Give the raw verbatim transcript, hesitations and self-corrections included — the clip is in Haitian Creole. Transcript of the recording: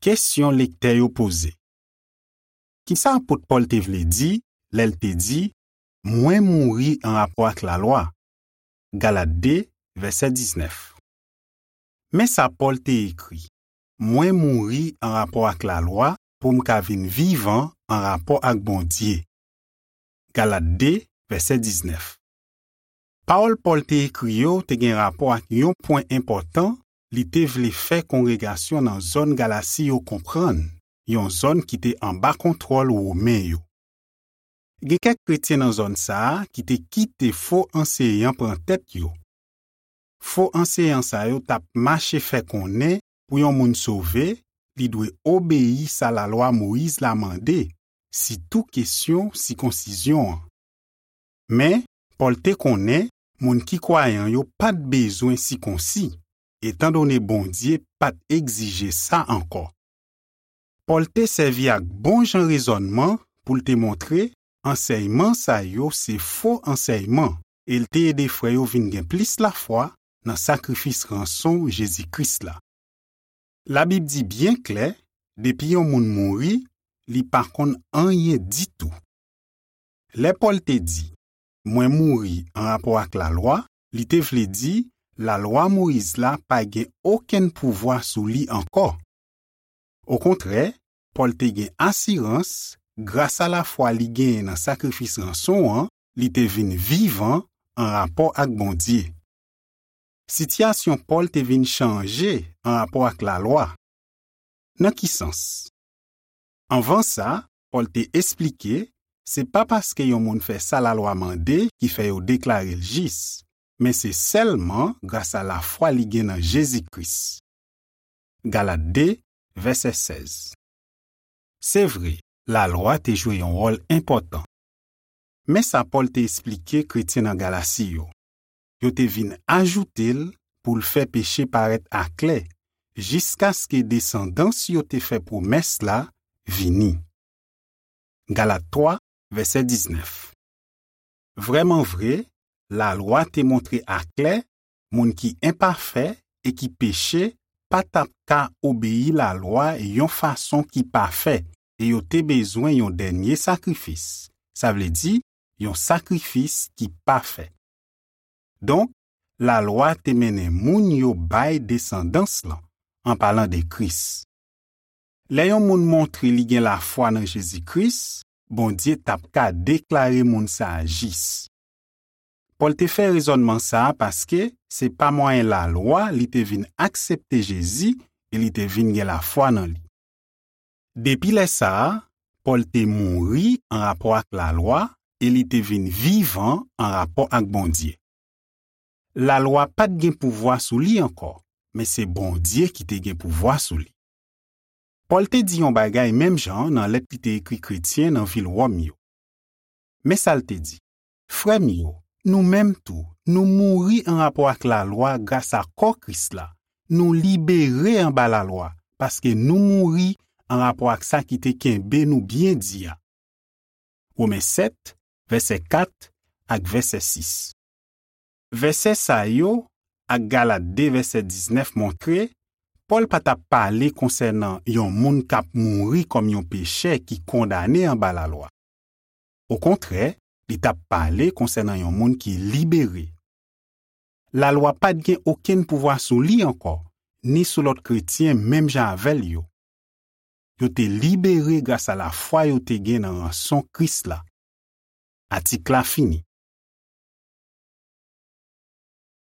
Kesyon lektè yo poze. Ki sa apot Pòl te vle di lè l te di, "Mwen mouri anrapò ak lalwa"? Galat de, vèsè diznèf. Men sa Pòl te ekri, "Mwen mouri anrapò ak lalwa pou m ka vin vivan anrapò ak Bondye." Galat de, vèsè diznèf. Pawòl Pòl te ekri yo te gen rapò ak yon pwen enpòtan li te vle fè kongregasyon nan zòn Galasi yo konprann, yon zòn ki te anba kontwòl Women yo. Gen kèk kretyen nan zòn sa a ki te kite fo anseyan pran tèt yo. Fo anseyan sa yo t ap mache fè konnen pou yon moun sove, li dwe obeyi sa lalwa Moyiz la mande, sitou kesyon sikonsizyon an. Men, Pòl te konnen moun ki kwayan yo pa t bezwen sikonsi, etandone Bondye pa t egzije sa ankò. Pòl te sèvi ak bon jan rezònman pou l te montre ansèyman sa yo se fo ansèyman, e l te ede frè yo vin gen plis lafwa nan sakrifis ranson Jezi Kris la. Labib di byen klè, depi yon moun mouri, li pa konn anyen ditou. Lè Pòl te di, "Mwen mouri anrapò ak lalwa," li te vle di lalwa Moyiz la pa gen okenn pouvwa sou li ankò. Okontrè, Pòl te gen asirans, gras a lafwa li genyen nan sakrifis ranson an, li te vin vivan anrapò ak Bondye. Sitiyasyon Pòl te vin chanje anrapò ak lalwa. Nan ki sans? Anvan sa, Pòl te esplike, se pa paske yon moun fè sa lalwa mande ki fè yo deklare l jis, men se sèlman gras a lafwa li gen nan Jezi Kris. Galat de, vèsè sèz. Se vre, lalwa te jwe yon wòl enpòtan. Men sa Pòl te esplike kretyen nan Galasi yo. Yo te vin ajoute l pou l fè peche parèt aklè, jiskaske desandans yo te fè pwomès la vini. Galat twa, vèsè diznèf. Vrèman vre, lalwa te montre aklè moun ki enpafè e ki peche pa t ap ka obeyi lalwa yon fason ki pafè, e yo te bezwen yon dènye sakrifis, sa vle di, yon sakrifis ki pafè. Donk, lalwa te mennen moun yo bay desandans lan, an palan de Kris. Lè yon moun montre li gen lafwa nan Jezi Kris, Bondye t ap ka deklare moun sa a jis. Pòl te fè rezònman sa a paske se pa mwayen lalwa li te vin aksepte Jezi e li te vin gen lafwa nan li. Depi lè sa a, Pòl te mouri anrapò ak lalwa e li te vin vivan anrapò ak Bondye. Lalwa pa t gen pouvwa sou li ankò, men se Bondye ki te gen pouvwa sou li. Pòl te di yon bagay menm jan nan lèt li te ekri kretyen nan vil Wòm yo. Men sa l te di, "Frè m yo, nou menm tou, nou mouri anrapò ak lalwa gras a kò Kris la. Nou libere anba lalwa, paske nou mouri anrapò ak sa ki te kenbe nou byen di a." Women sèt, vèsè kat ak vèsè sis. Vèsè sa yo ak Galat de vèsè diznèf montre Pòl pa t ap pale konsènan yon moun k ap mouri kòm yon pechè ki kondane anba lalwa. Okontrè, li t ap pale konsènan yon moun ki libere. Lalwa pa t gen okenn pouvwa sou li ankò, ni sou lòt kretyen menm jan avè l yo. Yo te libere gras a lafwa yo te gen nan ranson Kris la. Atik la fini.